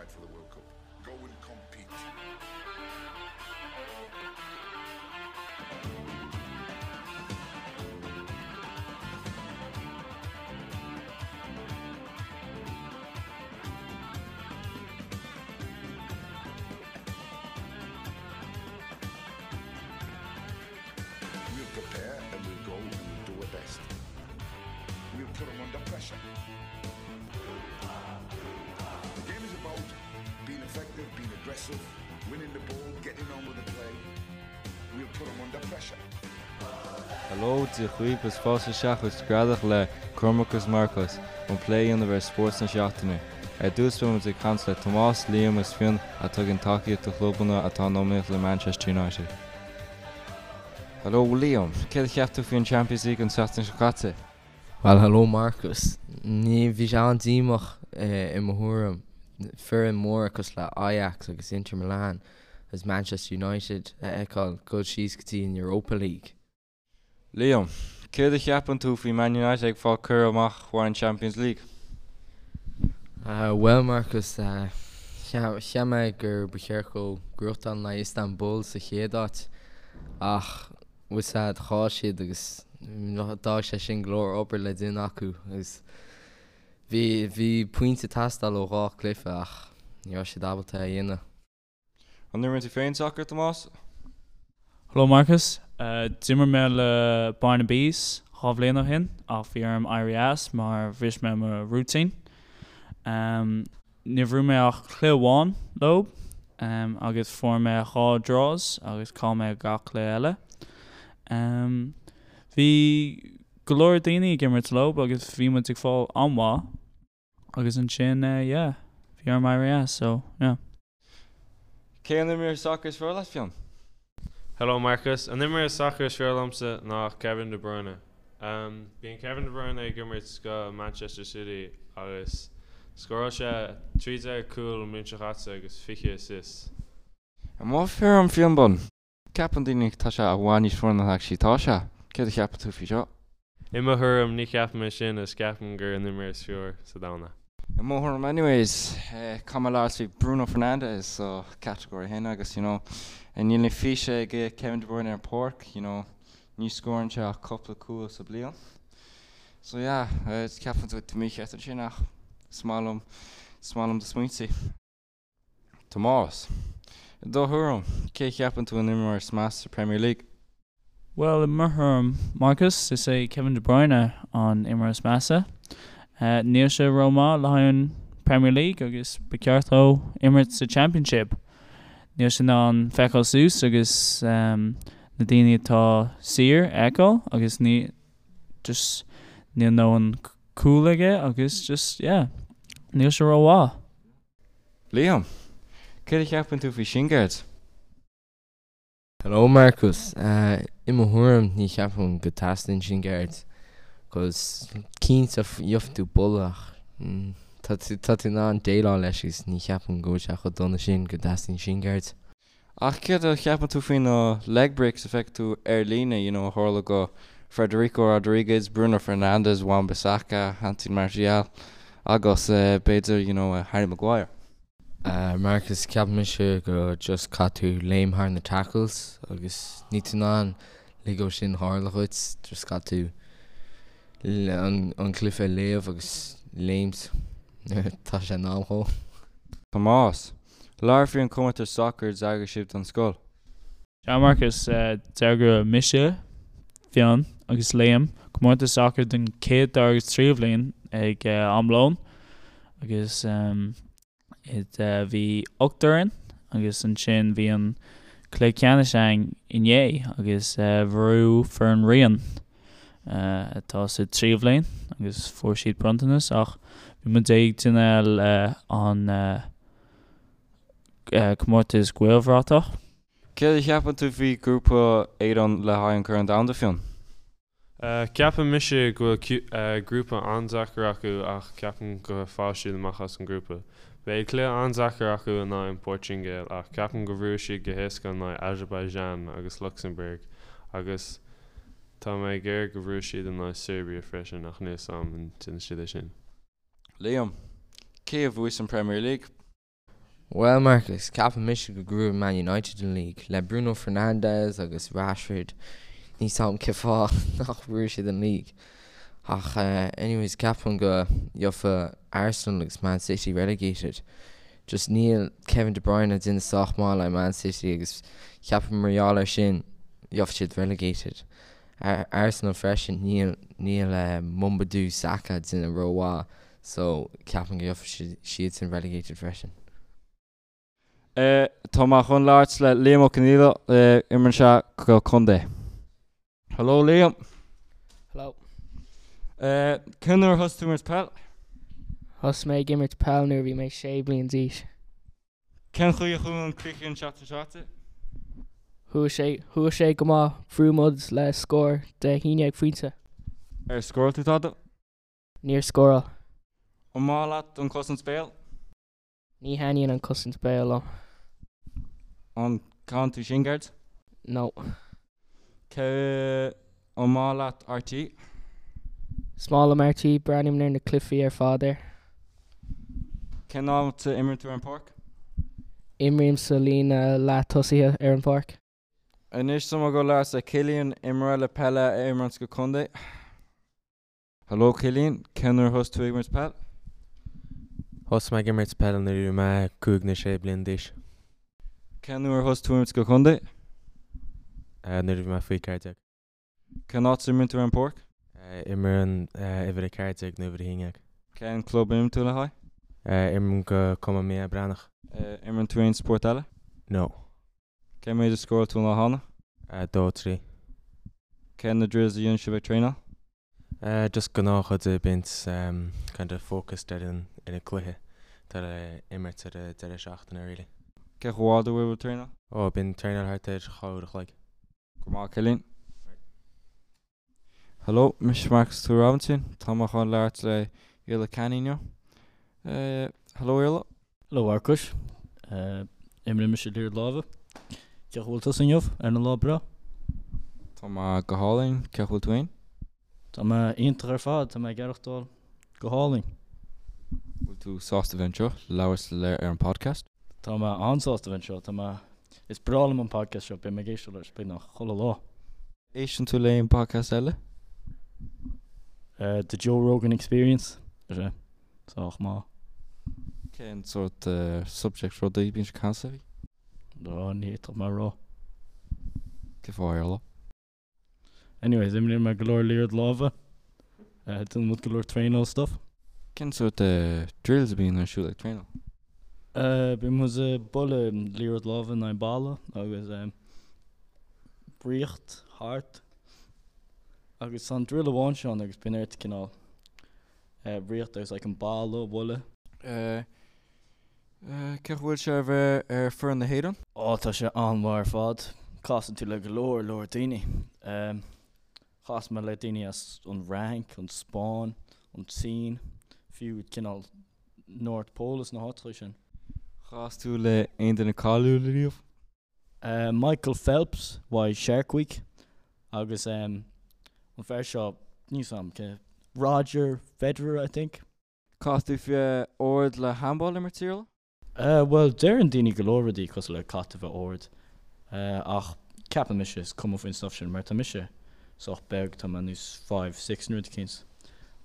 qualified for the World Cup. Go and compete. We'll prepare and we'll go and we'll do our best. We'll put them under pressure. The game is about being effective, being aggressive, winning the ball, getting on with the play. We'll put them under pressure. Hello, Dia dhaoibh is fáilte isteach chuig Screadach le Cormac agus Marcas chun plé a dhéanamh ar spórt na seachtaine. Ar dtús beidh muid ag caint le Tomás, Liam agus Fionn atá ag tugann tacaíocht do chlubanna atá in iomaíocht le Manchester United. Hello Liam, céard a cheap tú faoi an Champions League an tseachtain seo caite? Bhuel hello Marcus, ní, bhí sé an-díomách i mo thuairim, foireann móra cosúil le Ajax agus Inter Milan agus Manchester United a fheiceáil dul síos go dtí an Europa League. Liam, céard a cheapann tú faoi Man United ag fáil curtha amach uaidh an Champions League? Bhuel Marcus, cheap mé gur ba cheart dóibh gnóthachtáil in aghaidh Istanbul sa chéad áit ach bhfuil a fhios agat chaill siad agus d'fhág sé sin go leor obair le déanamh acu agus bhí bhí pointe ag teastáil ó dhá cluiche ach ní raibh siad ábalta é a dhéanamh. An imríonn tú féin sacar, Tomás? Hello Marcus. D'imir mé le Bearna Bees 2 bhliain ó shin ach bhí orm éirí as mar bhris mé mo rúitín. Níor bhuaigh mé ach cluiche amháin leo agus fuair mé 2 draws agus chaill mé gach cluiche eile. Bhí go leor daoine ag imirt leo agus bhí muid ag fáil an-mhaith agus ansin yeah bhí orm éirí as so yeah. Cé an imreoir sacair is fearr leat, Fionn? Hello Marcus, an imreoir sacair is fearr liomsa ná Kevin De Bruyne. Bíonn Kevin De Bruyne ag imirt go Manchester City agus scóráil sé 13 cúl an bhliain seo chaite agus 20 assists. I mo thuairim Fionn Bun, ceapann daoine tá sé i bhfad níos fearr ná actually tá sé. Céard a cheapann tú faoi seo? I mo thuairim ní cheapaim é sin is ceapaim gur an imreoir is fearr sa domhan é. I mo thuairim anyways, caithfidh mé labhairt faoi Bruno Fernandes so category 1 agus you know níl na físe ag Kevin De Bruyne ar an páirc you know ní scórann sé ach cúpla cúl sa bliain. So yeah, ceapann tú mícheart ansin ach is maith liom is maith liom do smaointe. Tomás, I do thuairim, cé a cheapann tú an imreoir is measa sa Premier League? Bhuel, i mo thuairim, Marcus, is é Kevin De Bruyne an imreoir is measa. Níl sé rómhaith le haghaidh an Premier League agus ba cheart dó imirt sa Championship. Níl sé in ann feiceáil suas agus na daoine atá saor a fheiceáil agus ní just níl ndóthain cúl aige agus just yeah níl sé rómhaith. Liam, Céard a cheapann tú faoi shin guards? Hello Marcus, I mo thuairim ní cheapaim go teastaíonn shin guards cos cinnte gheobhaidh tú buille ach tá tá tú in ann déileáil leis agus ní cheapaim go bhfuil sé chomh dona sin go dteastaíonn shin guards. Ach céard a cheapann tú faoi na leg breaks a feiceann tú ar líne, you know, a tharla go Federico Rodriguez, Bruno Fernandes, Wan Bissaka, Anthony Martial agus b'fhéidir, you know, Harry Maguire? Marcus, Ceapann mise go just caithfidh tú léim thar na tackles agus níl tú in ann lig dó sin tharla dhuit, just caithfidh tú an cluiche a léamh agus léimt nuair atá sé in am dhó. Tomás, Labhair faoi an comórtas sacair a d'eagraigh sibh don scoil. Sea Marcus, d'eagraigh mise, Fionn agus Liam comórtas sacair don chéad, dara agus tríú bhliain ag am lóin agus bhí 8 fhoireann agus ansin bhí an cluiche ceannais againn inné agus bhuaigh foireann Rian atá sa tríú bhliain agus fuair siad bronntanas ach bhí muid ag déanamh an comórtas Gaelbhratach. Céard a cheapann tú faoi grúpa Éireann le haghaidh an Corn Domhanda, Fionn? Ceapann mise go bhfuil grúpa an-deacair acu ach ceapaim go faighidh siad amach as an grúpa. Beidh cluiche an-deacair acu in aghaidh an Portaingéil ach ceapaim go bhuafaidh siad go héasca in aghaidh Azerbaijan agus Lucsamburg agus tá mé ag iarraidh go bhuafaidh siad in aghaidh Serbia freisin ach níl 'fhios a'm an déanfaidh siad é sin. Liam, Cé a bhuafaidh an Premier League? Bhuel Marcus, ceapann mise go ngnóthóidh Man United an league. Le Bruno Fernandes agus Rashford, níl 's a'm cén fáth nach bhuafaidh siad an league. Ach anyways, ceapaim go gheobhaidh Arsenal agus Man City relegated. Just níl Kevin De Bruyne ag déanamh sách maith le Man City agus ceapaim mar gheall air sin gheobhaidh siad relegated. Arsenal freisin, níl níl Mamadou Sakho ag déanamh rómhaith So, ceapaim go gheobhaidh siadsan relegated freisin. Tá mé chun labhairt le Liam Ó Conghaile, imríonn sé go contae. Hello Liam. Hello. Cén uair a thosaigh tú imirt peil? Thosaigh mé ag imirt peil nuair a bhí mé sé bliain d'aois. Cén chaoi a chuaigh an cluiche an tseachtain seo caite? Chuaigh sé, chuaigh sé go maith, bhuaigh muid le scór de 11 phointe. Ar scóráil tú tada? Níor scóráil. An maith leat an cosaint béil? Ní thaitníonn an cosaint béil liom. An gcaitheann tú shin guards? No. Cé An maith leat RTÉ? Is maith liom RTÉ, breathnaím ar na cluichí ar fad air. Cén áit a imríonn tú ar an páirc? Imrím sa líne leath tosaithe ar an pháirc. Anois tá mé ag dul labhairt le Cillian, imreoir le peile a imríonn go contae. Hello Cillian, cén uair a thosaigh tú ag imirt peil? Thosaigh mé ag imirt peile nuair a bhí mé 5 nó 6 bliana d'aois. Cén uair a thosaigh tú ag imirt go contae? Nuair a bhí mé faoi 14. Cén áit a imríonn tú ar an páirc? Imrím uimhir 14 nó uimhir 11. Cén club a imríonn tú le haghaidh? Imrím go Cumann Mícheál Breathnach. Imríonn tú aon spórt eile? No. Cé mhéad a scóráil tú an lá cheana? 2, 3. Cé na drills a dhéanann sibh ag traenáil? Just gnáthrudaí bíonn kind of focused ar an ar an cluiche atá le imirt ar an deireadh seachtaine really. Cé chomh fada a bhfuil sibh ag traenáil? Oh bíonn traenáil thart ar 2 uair a chloig. Go maith Cillian. Hello, mise Marcus Tua Robinson. Tá mé chun labhairt le Iarla Canny inniu. Hello Iarla. Hello Mharcais. Imríonn mise liathróid láimhe. Cén chaoi a bhfuil tusa inniu ar an lá breá? Tá mé go hálainn. Cén chaoi a bhfuil tú féin? Tá mé iontach ar fad. Tá mé ag aireachtáil go hálainn. Bhfuil tú sásta bheith anseo labhairt le ar an podcast? Tá mé an-sásta bheith anseo. Tá mé Is breá liom an podcast seo. Beidh mé ag éisteacht leis beagnach chuile lá. Éisteann tú le aon podcast eile? The Joe Rogan Experience. Tá sé sách maith. Cén sórt subject rudaí bíonn sé ag caint faoi? Ó, ní fhéadfadh mé a rá. Cén fáth Iarla? Anyways, imríonn mé go leor liathróid láimhe. Déanann muid go leor traenáil stuff. Cén sórt drills a bhíonn ar siúl ag traenáil? Bíonn muid ag bualadh liathróid láimhe in aghaidh balla agus rith thart. Agus tá an drill amháin seo ann agus bíonn ort cineál rith agus like an balla a bhualadh. Cén chaoi a bhfuil sé a bheith ar foireann na hÉireann? Ó tá sé an-mhaith ar fad. Casann tú le go leor leor daoine. Chas mé le daoine as an Fhrainc, an Spáinn, an tSín, fiú cineál North Pole is na háiteacha sin. Chas tú le aon duine cáiliúil riamh? Michael Phelps uaidh Shark Week agus an fear seo, níl 's a'm cé, Roger Federer I think. Caithfidh tú bheith ard le handball a imirt Iarla? Bhuel deireann daoine go leor rudaí cosúil le caithfidh tú bheith ard ach ceapann mise is cuma faoin stuff sin mar tá mise sách beag, tá mé níos 5'6 nó rud eicínt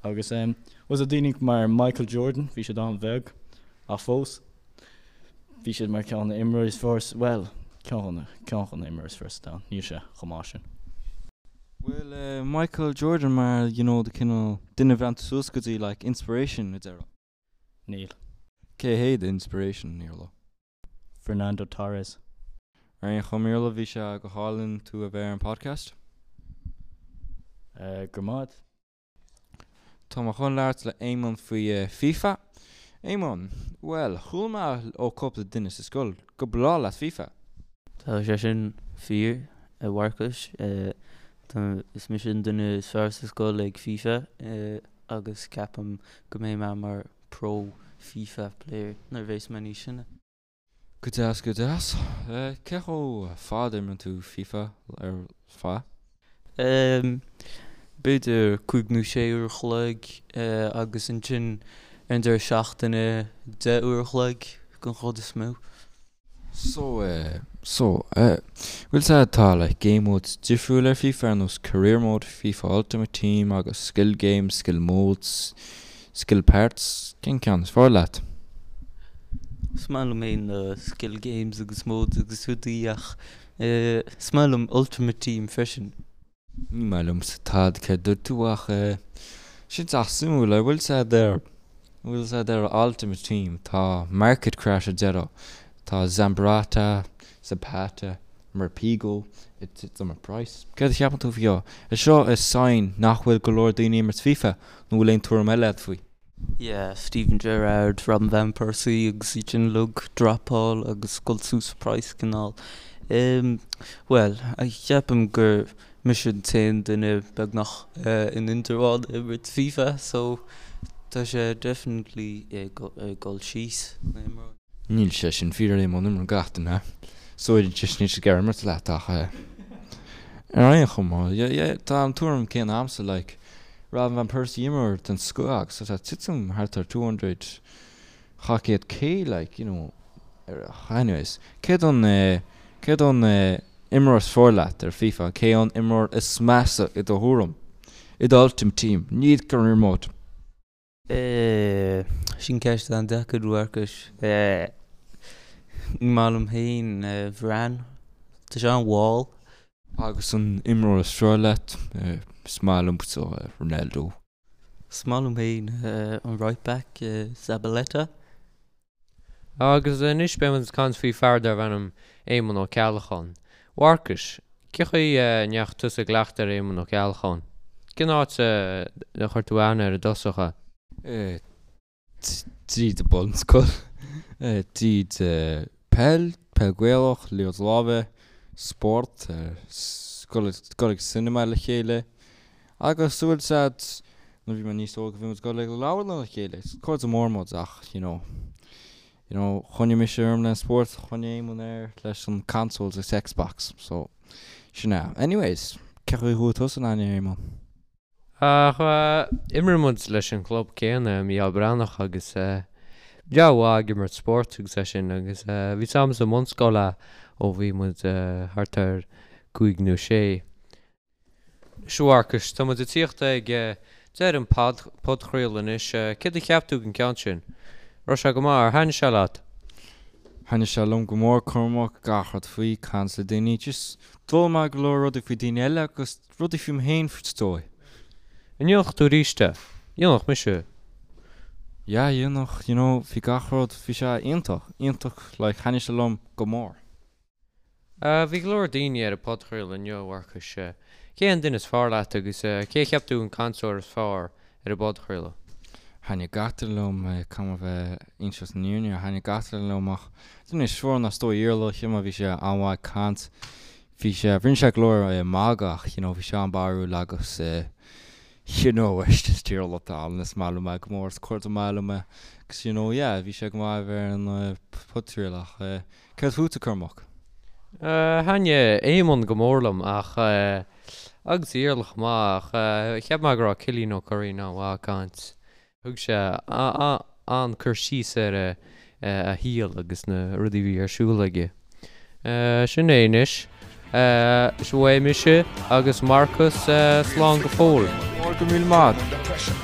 agus bhuel tá daoine mar Michael Jordan bhí siad an-bheag ach fós Bhí siad mar ceann de na imreoirí is fearr sa, bhuel, ceann de na, ceann de na imreoirí is fearr sa domhan. Níl sé chomh maith sin. Bhfuil Michael Jordan mar you know the cineál duine a bhreathnaíonn tú suas go dtí like inspiration a déarfá? Níl. Cé hé do inspiration, Iarla? Fernando Torres. Ar aon chuma Iarla, bhí sé go hálainn tú a bheith ar an podcast. Go raibh maith. Tá mé chun labhairt le Éamonn faoi FIFA. Éamonn, Bhuel, chuala mé ó cúpla duine sa scoil go breá leat FIFA. Tá sé sin fíor, a Mharcais. Is mise an duine is fearr sa scoil ag FIFA agus ceapaim go mbeidh mé mar pro FIFA player nuair a bheas mé níos sine. Go deas, go deas. Cé chomh fada a imríonn tú FIFA ar feadh? B'fhéidir 5 nó 6 uair a chloig agus ansin ar an deireadh seachtaine 10 uair a chloig. den chuid is mó. So eh, so eh, bhfuil 's a'd tá like game modes difriúil ar FIFA ar nós career mode, FIFA Ultimate Team agus skill games, skill modes, skill parts, cén ceann is fearr leat? Is maith liom féin na skill games agus modes agus rudaí ach eh is maith liom Ultimate Team freisin. Ní maith liomsa tada céard dúirt tú ach eh sin sách suimiúil ar bhfuil 's a'd ar bhfuil 's a'd ar Ultimate Team tá Market Crash ar deireadh tá Zambrotta, Zapata, Morpeko ag titim i price. Céard a cheapann tú faoi seo? Is seo is sign nach bhfuil go leor daoine ag imirt FIFA nó bhfuil aon tuairim eile agat faoi? Yeah, Steven Gerrard, Robin Van Persie agus iad sin uilig dropáil agus dul suas sa price cineál. Em, bhuel, ceapaim gur mise an t-aon duine beagnach in Indreabhán ag imirt FIFA so tá sé definitely ag dul síos na himreoirí. Níl sé sin fíor a Éamoinn, imríonn gach duine. So just níl siad ag iarraidh imirt leat ach ar aon chuma, yeah, tá an tuairim céanna a'msa like Robin van Persie imreoir den scoth agus tá sé ag titim thart ar 200, 200 K like, you know, anyways, céard an, céard an imreoir is fearr leat ar FIFA, cé an imreoir is measa i do thuairim, i do Ultimate Team, ní career mode. Sin ceist an-deacair, a Mharcais. Ní maith liom féin Varane. Tá sé an-mhall. Agus an imreoir is fearr leat? Is maith liomsa Ronaldo. Is maith liom féin an right back, Zabaleta. Agus anois beidh muid ag caint faoi fear darbh ainm Éamonn Ó Ceallacháin. A Mharcais, cé chaoi a ndeachaigh tusa i gcleachtadh ar Éamonn Ó Ceallacháin? Cén áit a chuir tú aithne air i dtosach? Tríd an bunscoil, tríd peil, peil Gaelach, liathróid láimhe, spórt, dul ag cinema le chéile agus bhfuil 's a'd nuair bhí mé níos óige bhí muid ag dul ag leabharlann le chéile, is cairde mór muid ach you know, you know choinnigh mise orm le spórt, choinnigh Éamonn air leis an consoles agus Xbox so sin é. Anyways, cé chaoi a chuaigh tusa in aithne ar Éamonn? Ach imríonn muid leis an chlub céanna, Mícheál Breathnach, agus breá mhaith ag imirt spóirt agus é sin agus bhí 's a'm sa mbunscoil é ó bhí muid thart ar cúig nó sé. Sea a Mharcais, tá muid ag tíocht ag deireadh an podchraoladh anois. Céard a cheap tú den ceann sin? Raibh sé go maith, ar thaitnigh sé leat? Thaitnigh sé liom go mór, Cormac, gach rud faoi, caint le daoine, just d'fhoghlaim mé go leor rudaí faoi daoine eile agus rudaí faoi mé féin is dóigh. An ndéanfadh tú arís é? Dhéanfadh mise. Yeah, dhéanfadh, you know, bhí gach rud, bhí sé iontach, iontach, like, thaitnigh sé liom go mór. Bhí go leor daoine ar an podchraoladh inniu, a Mharcais. Cé an duine is fearr leat agus cé a cheap tú an cainteoir is fearr ar an bpodchraoladh? Thaitnigh gach duine liom, caithfidh mé bheith inseacht an fhírinne, thaitnigh gach duine liom ach duine is fearr ná is dóigh Iarla, cheap mé bhí sé an-mhaith ag caint, bhí sé, rinne sé go leor magadh ach you know bhí sé an-barrúil agus you know is just Iarla atá ann, is maith liom é go mór, is cara maith liom é agus you know yeah bhí sé go maith a bheith ar an podchraoladh ach céard fútsa Cormac? Thaitnigh Éamonn go mór liom ach agus Iarla chomh maith ach cheap mé go raibh Cillian Ó Curraoin an-mhaith ag caint. Thug sé an-cur síos ar a shaol agus na rudaí a bhí ar siúl aige. Sin é anois. Sea, uaidh mise agus Marcus slán go fóill. Go raibh míle maith.